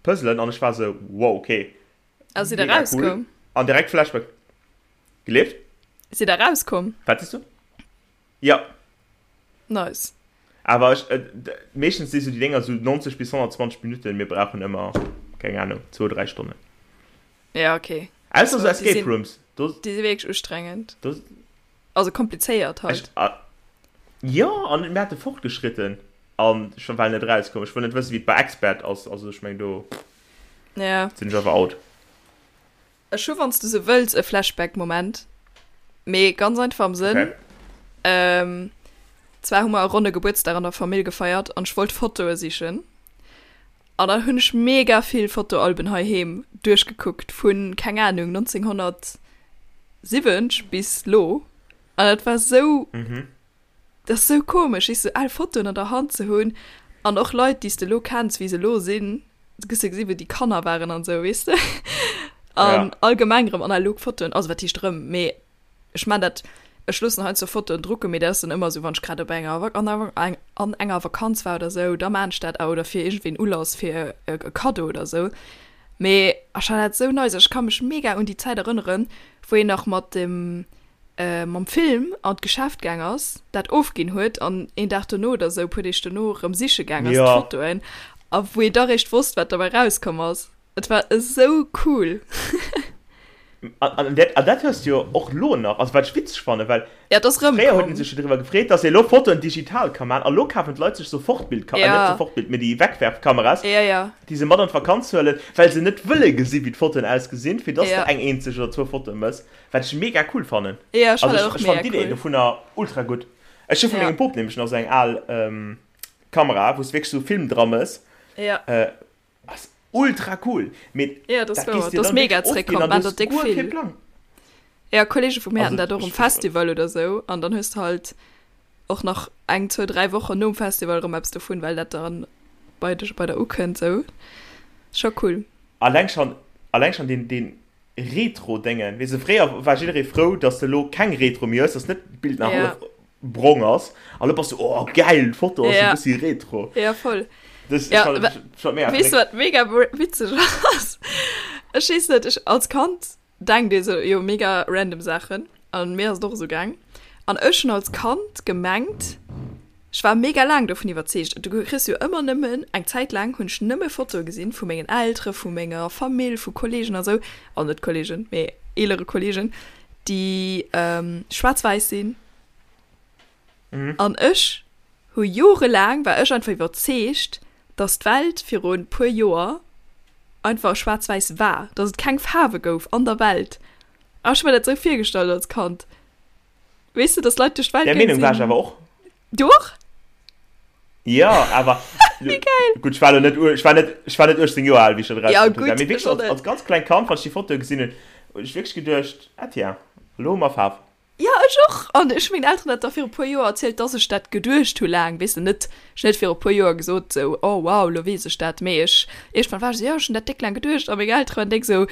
puzzelen an ech war sou, wow, okay. A sidd der rauskomm? An direkt Flashback. Gelieft? Sidd der rauskomm? Wat sees du? Ja. Nice. Awer ech, äh, meeschtens si sou déi Dénger sou 90 bis 120 Minutten, mir brauchen ëmmer, keng Ahnung, zwou, dräi Stonnen. Ja, okay. Ausser sou Escape Rooms. Do, déi si wierklech ustrengend. Do, also komplizéiert halt. Ech, ah, jo, an mir hate fortgeschritten an ech war net rauskomm. Ech wëll net wëssen, wéi et bei Expert ass, also ech meng do ja. sinn ech awer out. Ech hu wann s du se wëlls e Flashback-Moment, mee ganz einfach am Sënn, Okay. ähm, zwar hu mer e ronne Gebuertsdag an der Famill gefeiert an ech wollt Fotoe sichen an dann hunn ech mega vill Fotoalben heiheem duerchgekuckt vun, keng Ahnung, 1970 bis lo an dat war sou, Mhm. dat ass sou komesch, weess du, al Fotoen an der Hand ze hunn an och Leit, déi s de lo kenns, wéi se lo sinn. Du gëss jo gesinn, wou déi Kanner waren an esou, weess de? An Ja. allgemeng erëm analog Fotoen, also wat heescht erëm, mee ech man dat, ech loossen heiansdo Fotoen drucken, mee dat ass dann ëmmer esou, wann ech grad op enger Vak an enger an enger Vakanz war oder esou, da man ech dat, oder fir iergendwéi en Ulass fir e Kaddo oder esou. Mee ech fannen dat esou nice, ech ka mech mega un déi Zäit erënneren, wou een nach mat dem mam Film an d'Geschäft gaang ass, dat ofginn huet an een Dag dono oder sou, puer Deeg dono erëm siche gaang ass Ja. d'Fotoen a wou ee da réischt wosst, wat derbäi rauskomm ass. Et war esou cool. An, an, dat, an dat hues du jo och lo nach, also wat ech witzeg fannen, well Ja, et ass fréier huet rëmkomm. een sech jo driwwer gefreet, dass ee lo Fotoen digital ka man a lo kafen d'Leit sech Sofortbildka-, äh, net Ja. Sofortbild, mee déi Wegwerfkameras, Ja, ja. déi se mat an d'Vakanz huelen, well se net wëlle gesi wéi d'Fotoen ausgesinn, fir dass Ja. de eng eenzeg oder zwou Fotoe mëss. Wat ech mega cool fannen. Ja, ech Also fannen ech, dat och ech fannen mega d'Idee cool. dovunner ultra gutt. Ech hu vun Ja. mengem Pop nämlech nach sou eng al ähm, Kamera, wou s wierklech sou Film dra mëss. Ja. Äh, ass ultra cool. Mee Ja, das dat wouer. gees dir Das dann mega wierklech ofginn zréckkomm, an man du dat hues déck guer kee vill. Plang. Ja, Kollege vu mir haten Also dat och um ech, Festival oder sou an dann hues de halt och nach eng, zwou, dräi Wochen nom Festival erëm eppes dovun, well dat dann bei dech, bei der ukënnt sou. Scho cool. alleng schon, alleng schon deen, deen Retro-Déngen, weess de, fréier war jidderee frou, dass de elo keng Retro méi hues, dass net d'Bild nach Ja. hallef brong ass, a lo bass du, oh geil, d'Foto ass e Ja. bëssi retro. Ja, voll. Das, Ja, ech fand, wa- ech fand mega Weess du, verréckt. wat mega witzeg ass? Ech weess net, ech als Kand denkt ee sou jo mega random Saachen an mir ass et och esou gaang. An ech hunn als Kand gemengt, ech war mega laang dovun iwwerzeegt, du kriss jo ëmmer nëmmen, eng Zäit laang hunn ech nëmme Fotoe gesinn vu mengen Eltere, vu menger Famill, vu Kollegen a sou, also net Kollegen, mee eelere Kollegen, déi schwaarz-wäiss sinn. An ech hu jorelaang, war ech einfach iwwerzeegt, dass d'Welt viru puer Joer einfach schwaarz-wäiss war, dass et keng Faarwe gouf an der Welt. A ech hu mer dat sou virgestallt als Kand. Weess de, dass Leit duerch d'Welt Där gaang Meenung war ech sinn. awer och. Du och? Jo, awer. Wéi geil! Gutt, ech war elo net, ech war net, ech war net 18 Joer al, wéi ech dat Ja, erausfonnt hunn. gutt, Mee wierklech ech och als, net. als ganz klengt Kand, wann ech déi Fotoe gesinn hunn, hunn ech wierklech geduecht, ah tiens, elo hu mer Faarf. Jo, ech och. An ech hu mengen Elteren dat da viru puer Joer erzielt, dass ech dat geduecht hu laang, weess de, net, ech hunn net viru puer Joer gesot sou, oh wow, lo weess ech dat, mee ech, iergendwann war ech sou, jo, ech hunn dat déck laang geduecht a meng Eltere waren déck sou,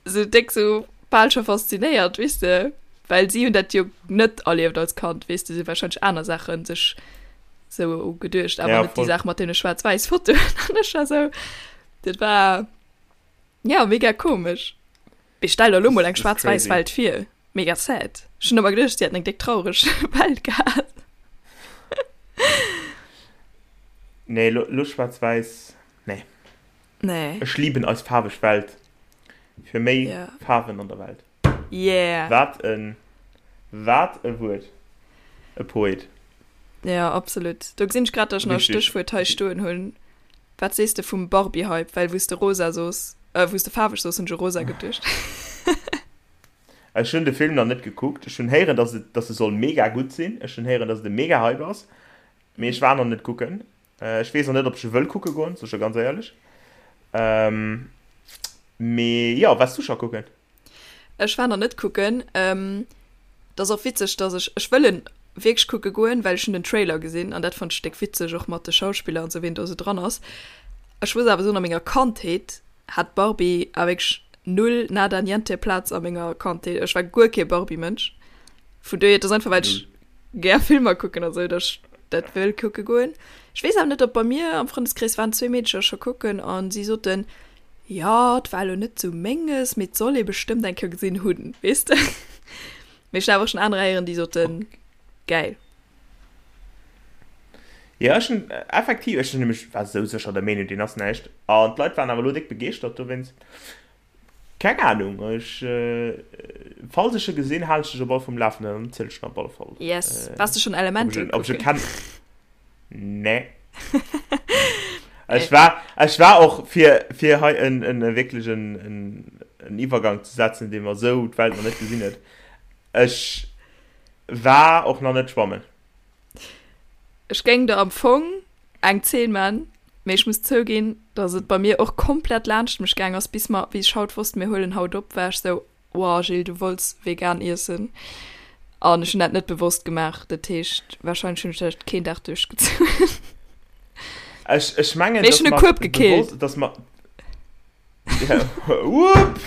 sou déck sou bal scho faszinéiert, weess de, well si hunn dat jo net erlieft als Kand, weess de, si hu warscheinlech aner Saache sech sou geduecht, awer Ja, net déi voll. Saach mat deene schwaarz-wäiss Fotoen. An ech war sou, dat war, ja, mega komesch. Mee stell der lo mol eng Das ist schwaarz-wäiss crazy. Welt vir. Mega sad. Ech hunn ëmmer geduecht, si hätten eng déck traureg Welt gehat. Nee, lo, lo schwaarz-wäiss, nee. Nee. Ech lieben eis faarweg Welt. Fir méi Ja. Faarwen an der Welt. Yeah. Wat en, wat e Wuert. E Poet. Ja, absolut. Do gesinn ech grad, dass ech nach e Stéchwuert hei stoen hunn. Wat sees de vum Barbie-Hype? Well wou s de rosa soos, äh, wou s de faarweg soos, hunn ech u rosa geduecht. Ech hunn de Film nach net gekuckt. Ech hunn héieren, dass et, dass e soll mega gutt sinn. Ech hunn héieren, dass et e mega Hype ass. Mee ech war nach net kucken. Ech weess och net, ob ech e wëll kucke goen, sou ech ganz éierlech. Ähm, mee jo, waars du scho kucken? Ech war nach net kucken. Ähm, dat ass och witzeg, dass ech, ech wëll en wierklech kucke goen, well ech hunn den Trailer gesinn an dat fonnt ech déck witzeg, och mat de Schauspiller an sou, wien do sou dran ass. Ech muss awer soen, a menger Kandheet hat Barbie awer wierklech null, nada, niente Plaz a menger Kandheet. Ech war guer kee Barbie-Mënsch. Vun dohier, et ass einfach, well ech gär Filmer kucken a sou, dass ech dat wëll kucke goen. Ech weess awer net, ob bei mir am Frëndeskrees waren zwee Meedecher scho kucken an si soten, Jo, et war elo net sou menges, mee et soll ee bestëmmt eng Kéier gesinn hunn, weess de. Mee ech hunn awer och schonn anerer héieren, déi soten, gäil. Jo, ech hunn effektiv, ech hunn nämlech, war sou sécher der Meenung, deen ass näischt. An d'Leit waren awer elo déck begeeschtert dowéinst. Keng Anung, ech, falls ech e gesinn, halen ech dech op alle Fall um Lafenden an dann zielen ech der op alle Fall. Yes. Waars de schonn Elemental kucken? Ob ech e kennen? Nee. Ech war, ech war och fir, fir hei en, en, wierklech en, en, en Iwwergang ze setzen, dee mer esou d'Welt nach net gesinn huet. Ech war och nach net schwammen. Ech géing der am Fong eng Zeen man, mee ech muss zouginn, dass et bei mir och komplett laanscht mech gaang ass, bis mer, wéi ech haut wosst, mir huelen haut op, war ech sou, Wow Gilles, du wollts vegan iessen an ech hunn dat net bewosst gemaach. Dat heescht wahrscheinlech hunn ech dat keen Dag duerchgezunn. Ech, ech mengen, Mee ech hunn e Kueb gekillt. Dass mer, ja, wupp!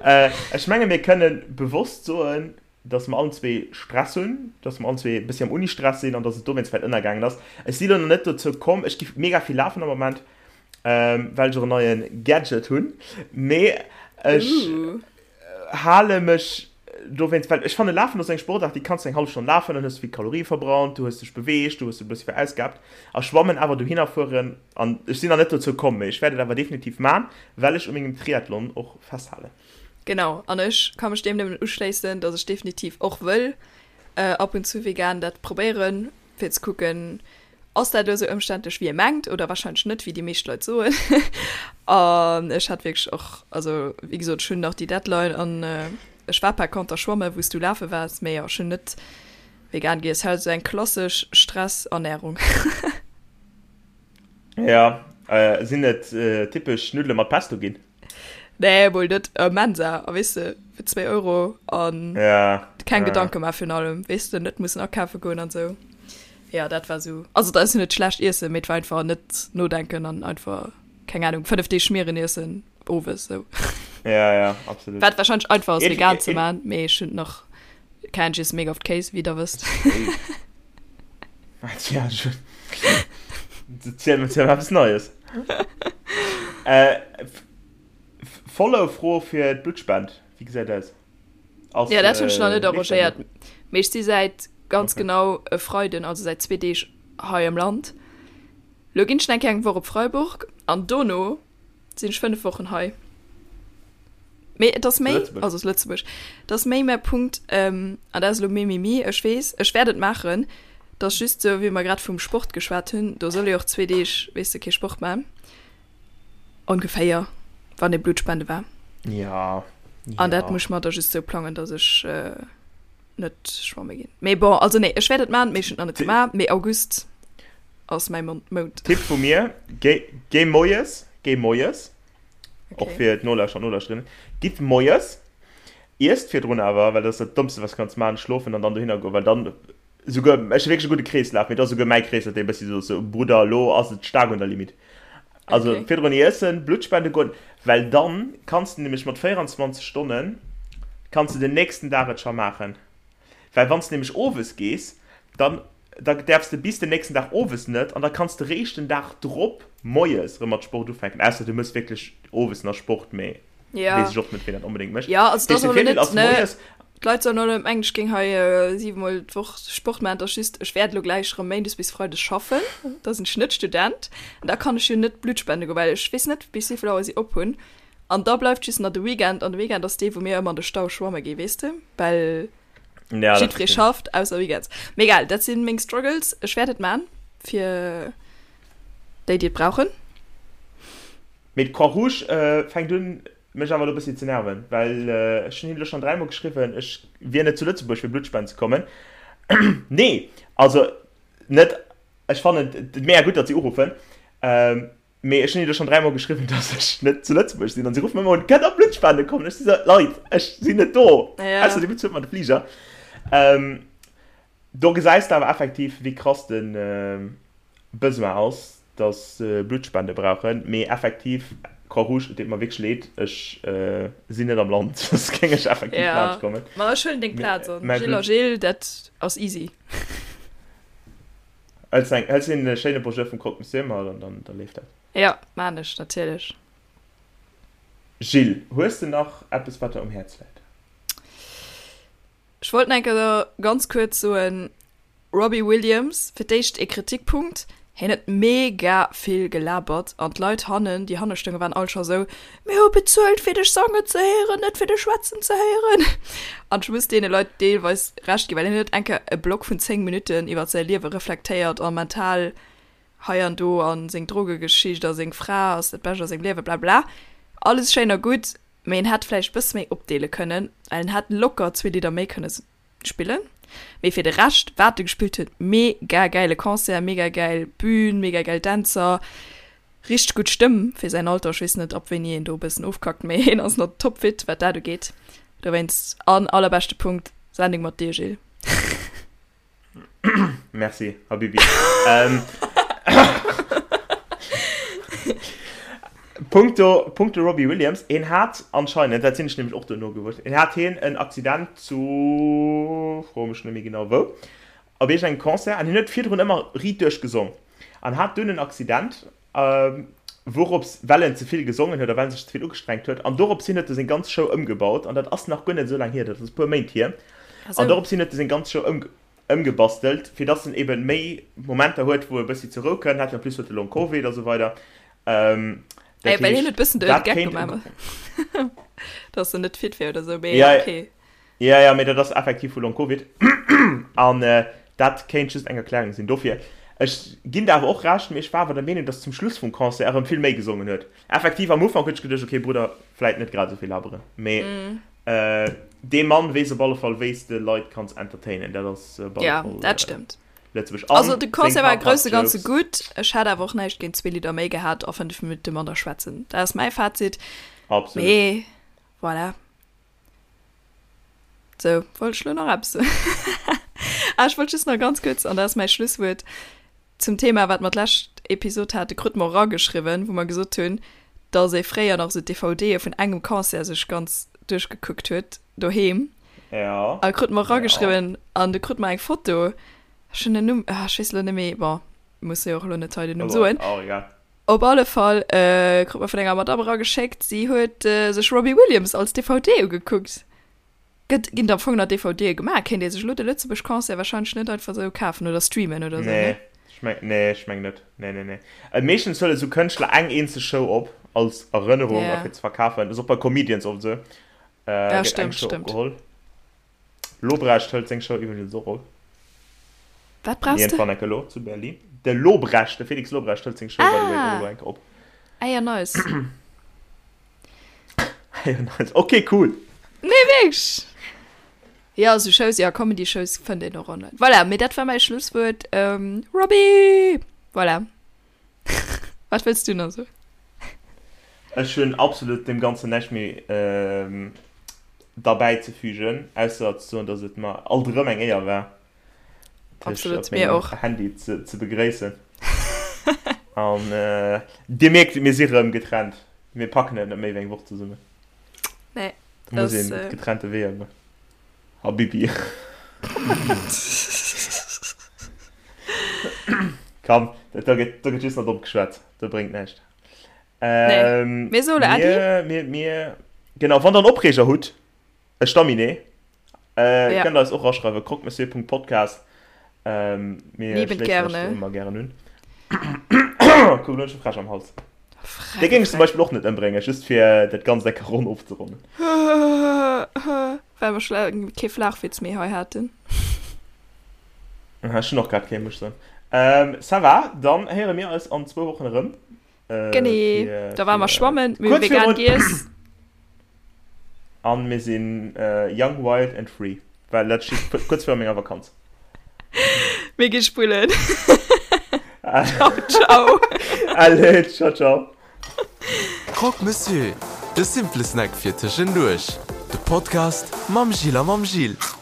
Äh, ech menge mir kënnen bewosst soen, dass mer allen zwee Stress hunn, dass mer allen zwee e bëssi am Uni-Stress sinn an dass et dowéinst vläicht ënnergaangen ass. Ech si lo nach net dozou komm, ech gi mega vill lafen am Moment, ähm, well ech och en neie Gadget hunn, mee ech uh. hale mech dowéinst, well ech fanne Lafen ass eng Sportaart, déi kanns du eng hallef Stonn lafen, dann hues du vill Kalorie verbrannt, du hues dech beweegt, du hues e bëssi verausgabt a schwammen awer dohinner fueren an ech sinn nach net dozou komm, mee ech wäert et awer definitiv man, well ech u mengem Triathlon och festhalen. Genau, an ech ka mech deem nëmmen uschléissen, dass ech definitiv och wëll äh, ab und zu vegan dat probéieren, fir ze kucken, ass dat elo esou ëmständlech wéi ee mengt oder wahrscheinlech net, wéi déi meescht Leit soen. An ech hat wierklech och, also wéi gesot, ech hunn nach déi Deadline an ech war par conter schwamme wou s du lafe waars, mee jo, ech hunn net vegan giess, halt esou eng klassesch Stressernärung. Ja, sinn et typesch Nuddele mat Pesto ginn? Nee, mol net äh, Mensa, a weess de, fir 2 Euro an ja, keng ja. Gedanke mar virun allem, weess de, net mussen akafe goen an sou. Ja, dat war sou. Also dat ass jo net schlecht iessen, mee et war einfach net nodenken an einfach, keng Ahnung, 5 Deeg Schmieren iessen owes sou. Ja, ja, absolut. Wat wahrscheinlech einfach ass vegan ze man, mee ech hunn nach keng, ech iesse mega oft Kéis, wéi der wësst. Tja, schon. Ziel mir ziel eppes Neies. äh, Follow-Fro fir d'Bluttspend. Wéi gesäit aus? Ass, ja, dat hunn ech nach net arrangéiert. Mee ech si säit ganz okay. genau e Freiden, also säit zwee Deeg hei am Land. Lo ginn ech eng eng Woch op Freiburg an dono sinn ech 5 Wochen hei. Mee et ass méi, also aus Lëtzebuerg, et ass méi mäi Punkt, ähm, an dat ass elo mimimi, ech weess, ech wäert et maachen, et ass just esou, wéi mer grad vum Sport geschwat hunn, do soll ee och zwee Deeg, weess de, kee Sport maachen, ongeféier, wann ee Blut spende war. Ja, An dat ja. muss ech mer da just esou plangen, datt ech net schwamme ginn. Mee bon, also nee, ech wäert et maachen, mee ech hunn et nach net gemaach, mee August ass mäi Mount. Tipp vu mir, géi, géi moies, géi moies, okay. Och fir d'Nolauschterer an Nolauschterinnen. Gitt moies, iesst virdrun awer, well dat ass dat Dommste, wat s kanns maachen, schlofen an dann dohinner goen, well dann souguer, ech hu wierklech e gudde Kreeslaf, mee et ass souguer mäi Kreeslaf, dee e bëssi sou ass, sou, Brudder, elo ass et staark un der Limite. Also okay. virdrun iessen, Blutt spende goen, well dann kanns de nämlech mat 24 Stonnen, kanns de den nächsten Dag et scho maachen. Well wann s de nämlech owes gees, dann da däerfs de bis den nächsten Dag owes net an da kanns de réischt den Dag drop moies erëm mat Sport ufänken, ausser du méchs wierklech owes nach Sport, mee ja. weess ech och net, wien dat onbedéngt mécht. Ja, also Dat das heescht, de ass Virdeel net, ass ne, moies, d'Leit sollen och net mengen, ech géing hei siwemol d'Woch Sport maachen, et ass just, ech wäert elo gläich erëm méindes bis freides schaffen, da sinn ech net Student an da kann ech jo net Blutt spende goen, well ech weess net, bis wéivill Auer si op hunn an da bleift just nach de Weekend an de Weekend ass dee, wou mir ëmmer an de Stau schwamme gi, weess de, well. Ja, Jiddweree schafft, ausser Weekends. Mee egal, dat sinn meng Struggles. Ech wäert et man fir déi, déi et brauchen. Mee d'Croix Rouge fänkt un mech awer elo e bëssi ze nerven, well ech hunn hinnen elo schonn dräimol geschriwwen, ech wier net zu Lëtzebuerg fir Blutt spenden ze kommen. Nee, also net, ech fannen et mega gutt, datt si uruffen, mee ech hunn hinnen elo schonn dräimol geschriwwen, datt ech net zu Lëtzebuerg sinn an si ruffen ëmmer un, Kënnt der Blutt spende kommen? Ech si sou, Leit, ech sinn net do, ausser dir bezuelt mer de Fliger. Do gesäis de awer effektiv, wéi krass de Besoin ass, dass se Bluttspende brauchen. Mee effektiv, Croix-Rouge, et deet mer wierklech leed, ech sinn net am Land, soss géing ech effektiv laanscht kommen. Jo, ma ech huelen deng Plaz an. Gilles a Gilles, dat ass easy. Hëls eng, hëls een schéine Bonjour vum Croque Monsieur mat an dann, da leeft dat. Jo, maan ech natierlech. Gilles, hues de nach eppes, wat der um Häerz läit? Ech wollt nach eng Kéier ganz kuerz soen, Robbie Williams, fir d'éischt ee Kritikpunkt, hien huet mega vill gelabert an d'Leit hannen, déi hanne stoungen, waren all scho sou, Mir hu bezuelt fir dech sangen ze héieren, net fir dech schwätzen ze héieren. An ech muss deene Leit deelweis Recht ginn, well hien huet eng Kéier e Block vun 10 Minutten iwwer säi Liewe reflektéiert a mental hei an do a seng Drogegeschicht a seng Fra ass dat Bescht a sengem Liewe, blabla. Alles schéin a gutt, Mee en hätt vläicht bësse méi opdeele kënnen, well en hätt locker zwee Lidder méi kënne spillen. Mee fir de Rescht, wat e gespillt huet, mega gäile Concert, mega gäil Bühn, mega gäil Dänzer, richteg gutt Stëmm fir säin Alter. Ech weess net, ab wéini een do e bëssen ofkackt, mee hien ass nach topfit, wat dat ugeet. Dowéinst, an allerbeschte Punkt, Sendung mat dir, Gilles. Merci, Habibi. ähm, Punkto, punkto Robbie Williams, en hat anscheinend, dat sinn ech nämlech och duerno gewuer, en hat hien en Accident zu, froe mech net méi genau wou, op iergendengem Concert, an hien huet virdrun ëmmer riit duerch gesong, an hat dunn en Accident, wourops, well en ze vill gesongen huet a well en sech ze vill ugestrengt huet, an dorops hin huet e seng ganz Show ëmgebaut, an dat ass nach guer net esou laang hier, dat ass e puer Méint hier, an dorops hin huet e seng ganz Show ëmgebastelt, fir dass en eben méi Momenter huet, wou e bëssi zur Rou kënnt, hat jo en plus huet e Long Covid a sou weider, dat heescht, dat kéint e. Dass en net fit wär oder sou, mee okay. Ja, ja, mee dat ass effektiv vu Long-Covid. An dat kéint just eng Erklärung sinn dofir. Ech ginn der awer och Recht, mee ech war awer der Meenung, dass zum Schluss vum Concert erëm vill méi gesongen huet. Effektiv, am Ufank huet ech geduecht, okay, Brudder, vläit net grad esou vill laberen. Mee dee Mann weess op alle Fall, wéi s de Leit kanns entertainen. Dat ass op alle Ja, Fall dat stëmmt. Lëtzebuerg. Also An de seng Concert war paar grousse Ganze Jokes. gutt. Ech hätt awer och näischt géint zwee Lidder méi gehat a 5 Minutte manner schwätzen. Dat ass mäi Fazit. Absolut. Mee voilà. Sou, wollt ech lo nach eppes soen? Ah, ech wollt just nach ganz kuerz, an dat ass mäi Schlusswuert, zum Thema, wat mer d'lescht Episod hate krut mer erageschriwwen, wou mer gesot hunn, dass ee fréier nach esou d'DVDe vun engem Concert sech ganz duerchgekuckt huet doheem. Ja. A krut mer erageschriwwen an du krut mer eng Foto, ech hunn den Numm, ah, ech weess elo net méi, bon, muss jo och elo net hei den Numm soen. Oh, egal. Op alle Fall krut mer vun enger Madame erageschéckt, si huet sech Robbie Williams als DVD ugekuckt. Gëtt, ginn am Fong nach DVDe gemaach? Kéint ee sech elo de Lëtzebuerg Concert wahrscheinlech net einfach esou kafen oder streamen oder esou, Nee, ne? ech meng, nee, ech meng net. Nee, nee, nee. Meeschtens huele sou Kënschtler eng eenzeg Show op, als Erënnerung a Ja. fir ze verkafen. Ass och bei Comedians oft esou. Ja, Gëtt eng stëmmt, Show stëmmt. opgeholl. Lobrecht hëlt seng Show iwwregens och op. Wat brauchs de? Iergendwann enke lo zu Berlin. De Lobrecht, de Felix Lobrecht hëlt seng Show by the way och elo enke op. Ah ja, nice. Ah ja, nice. Ok, cool. Nee, wierklech. Ja, esou Shows, ja, Comedy-Shows fënnt een och online. Voilà, mee dat war mäi Schlusswuert. Ähm, Robbie! Voilà. Wat wëlls du nach soen? Ech hunn absolut deem Ganzen näischt méi derbäi ze fügen, ausser ze soen, dass et mer alt erëm eng Éier war, dech op mengem Handy ze begréissen. An Dir mierkt, mir si rëm getrennt. Mir packen et net méi wéi eng Woch zesummen. Nee. Da muss een getrennte Weeër goen. Habibi. Komm, da gëtt, da gëtt just nach domm geschwat. Dat bréngt näischt. Ähm, nee. Mir soen Äddi. Mir, mir, mir, genau, wann der en Opreeger hutt, e Staminee, äh, ja. kënnt eis och raschreiwen, croquemessieur.podcast. Ähm, mir Liebend schléissen gerne. eis ëmmer gären un. Kuck, elo hunn ech e Fräsch am Hals. Dee géing ech zum Beispill och net ëmbréngen, just fir dat Ganzt eng Kéier ronn ofzeronnen. Well mer scho laang kee Flachwitz méi hei haten. Ech hunn och grad kee, muss ech soen. Ça va, dann héiere mir eis an zwou Wochen erëm. Genee, da ware mer schwammen, mir hu vegan giess. An mir sinn young, wild and free, well dat steet kuerz viru menger Vakanz. Mir gi spullen. Ciao, ciao. Allez, ciao, ciao. Croque Monsieur, de simple Snack fir tëschenduerch. De Podcast mam Gilles a mam Gilles.